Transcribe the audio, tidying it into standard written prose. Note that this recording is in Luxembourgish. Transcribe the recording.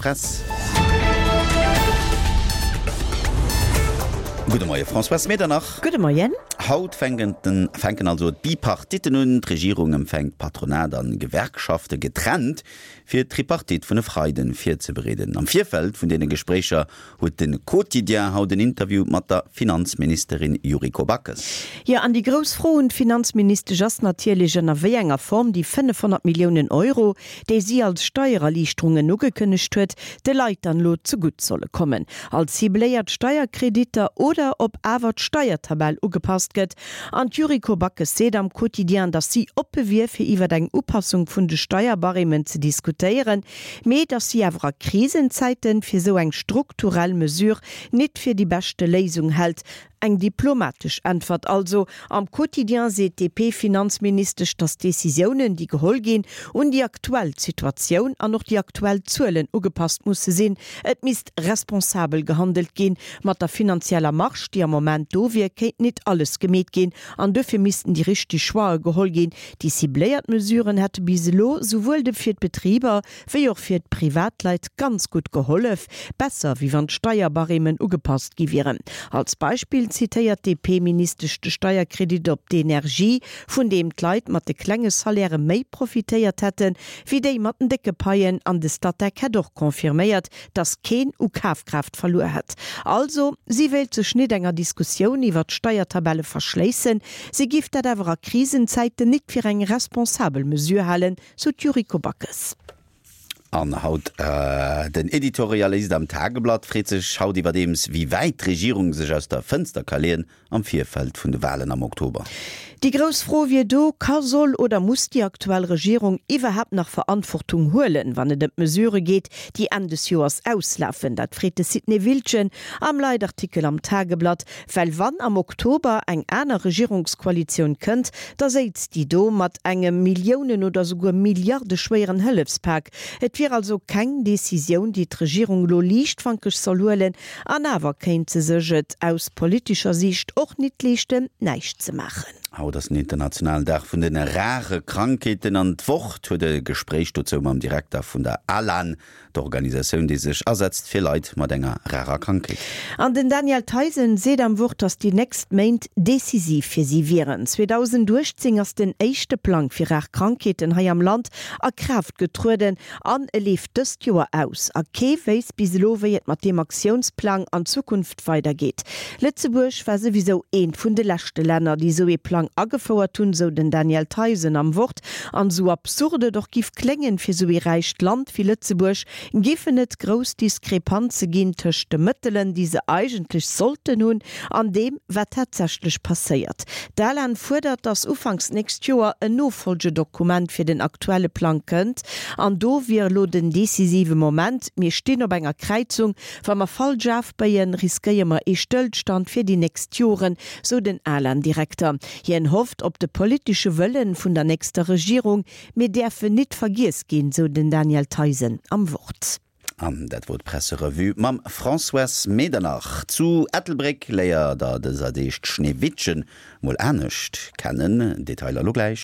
Press. Gudde Moie Françoise Medernach. Gudde Moien. Haut fänken den fänken also d'Bipartitten un. D'Regierung empfänkt Patronat an Gewerkschafte getrennt, fir d'Tripartite vun e Freiden virzebereeden. Am Virfeld vun deene Gespréicher huet de Quotidien haut en Interview mat der Finanzministerin Yuriko Backes. Jo, an déi grouss Fro un d'Finanzministesch ass natierlech, ënner wéi enger Form déi 500 Milliounen Euro, déi si als Steiererliichterungen ugekënnegt huet, de Leit dann elo zegutt solle kommen, als cibléiert Steierkreditter oder ob awer d'Steiertabell ugepasst gëtt. An d'Yuriko Backes seet am Quotidien, datt si oppe wier, fir iwwer eng Upassung vun de Steierbarèmen ze diskutéieren, mee datt si awer a Krisenzäiten fir esou eng strukturell Mesure nit fir déi beschte Léisung hält. Eng diplomatesch Äntwert also. Am Quotidien seet d'DP-Finanzministesch, datt d'Decisiounen, déi geholl ginn, un déi aktuell Situatioun an och déi aktuell Zuelen ugepasst musse sinn. Et misst responsabel gehandelt ginn. Mat der finanzieller Marge, déi am Moment do wier, kéint nit alles gemeet ginn an duerfir missten déi richteg Choixë geholl ginn. Déi cibléiert Mesuren hätte bis elo souwuel de fir d'Betriber wéi och fir d'Privatleit ganz gutt gehollef, besser wéi wann d'Steierbarèmen ugepasst gi wieren. Als Beispill zitéiert d'DP-Ministesch de Steierkredit op d'Energie, vun deem d'Leit mat de klenge Salairë méi profitéiert hätte wéi déi mat den décke Paien. An de Statec hätt och confirméiert, datt keen u Kafkraaft verluer hätt. Also, si wéilt sech nit enger Diskussioun iwwer d'Steiertabelle verschléissen, si giff dat awer a Krisenzäiten nit fir eng responsabel Mesure halen, Sou d'Yuriko Backes. An haut, den Editorialist am Tageblatt freet sech haut iwwerdeems, wéi wäit d'Regierung sech aus der Fënster ka leeën am Virfeld vun de Walen am Oktober. Déi grouss Fro wier do, Ka, soll oder muss déi aktuell Regierung iwwerhaapt nach Verantwortung huelen, wann et ëm d'Mesurë geet, déi Enn des Joers auslafen? Dat freet de Sidney Wildgen am Leitartikel am Tageblatt. Well wann am Oktober eng aner Regierungskoalitioun kënnt, da séizt déi do mat engem Milliounen oder souguer milliardeschwéieren Hëllefspak. Et wier also keng Decisioun, déi d'Regierung elo liichtfankeg soll huelen, an awer kéint se sech et aus politescher Siicht och nit leeschten, näischt ze maachen. Haut ass den internationalen Dag vun de rare Krankheeten an d'Wort huet e Gespréich dozou mam Direkter vun der ALAN, D'Organisatioun, déi sech asetzt fir Leit mat enger rarer Krankheet. An den Daniel Theisen seet am Wort, datt déi nächst Méint decisiv fir si wieren. 2018 ass den éischte Plang fir rar Krankheeten hei am Land a Kraaft getrueden an e leeft dëst Joer aus. A kee wéisst bis elo, wéi et mat deem Aktiounsplang an Zukunft weidergeet. Lëtzebuerg war souwisou eent vun de leschte Länner, déi esou ee Plang agefouert hunn, sou den Daniel Theisen am Wort. An esou absurd et och giff kléngen, fir esou ee räicht Land wéi Lëtzebuerg giffen et grouss Diskrepanze ginn tëscht de Mëttelen, déi se eigentlech sollten hunn, an deem, wat tatsächlech passéiert. D'ALAN fuerdert, datt ufanks d'nächst Joer en Nofolgedokument fir den aktuelle Plang kënnt. An do wier elo den decisive Moment. Mir stinn op enger Kräizung. Wa mer falsch afbéien, riskéiere mer ee Stëllstand fir déi nächst Joren, sou den ALAN-Direkter. Hien hofft op de politesche Wëllen vun der nächster Regierung. Mir däerfen nit vergiess ginn, sou den Daniel Theisen am Wort. An dat wor d'Presserevue mam Françoise Medernach. Zu Ettelbréck léiert der dëser Deeg d'Schneewittchen mol anescht kennen. Detailer lo gläich.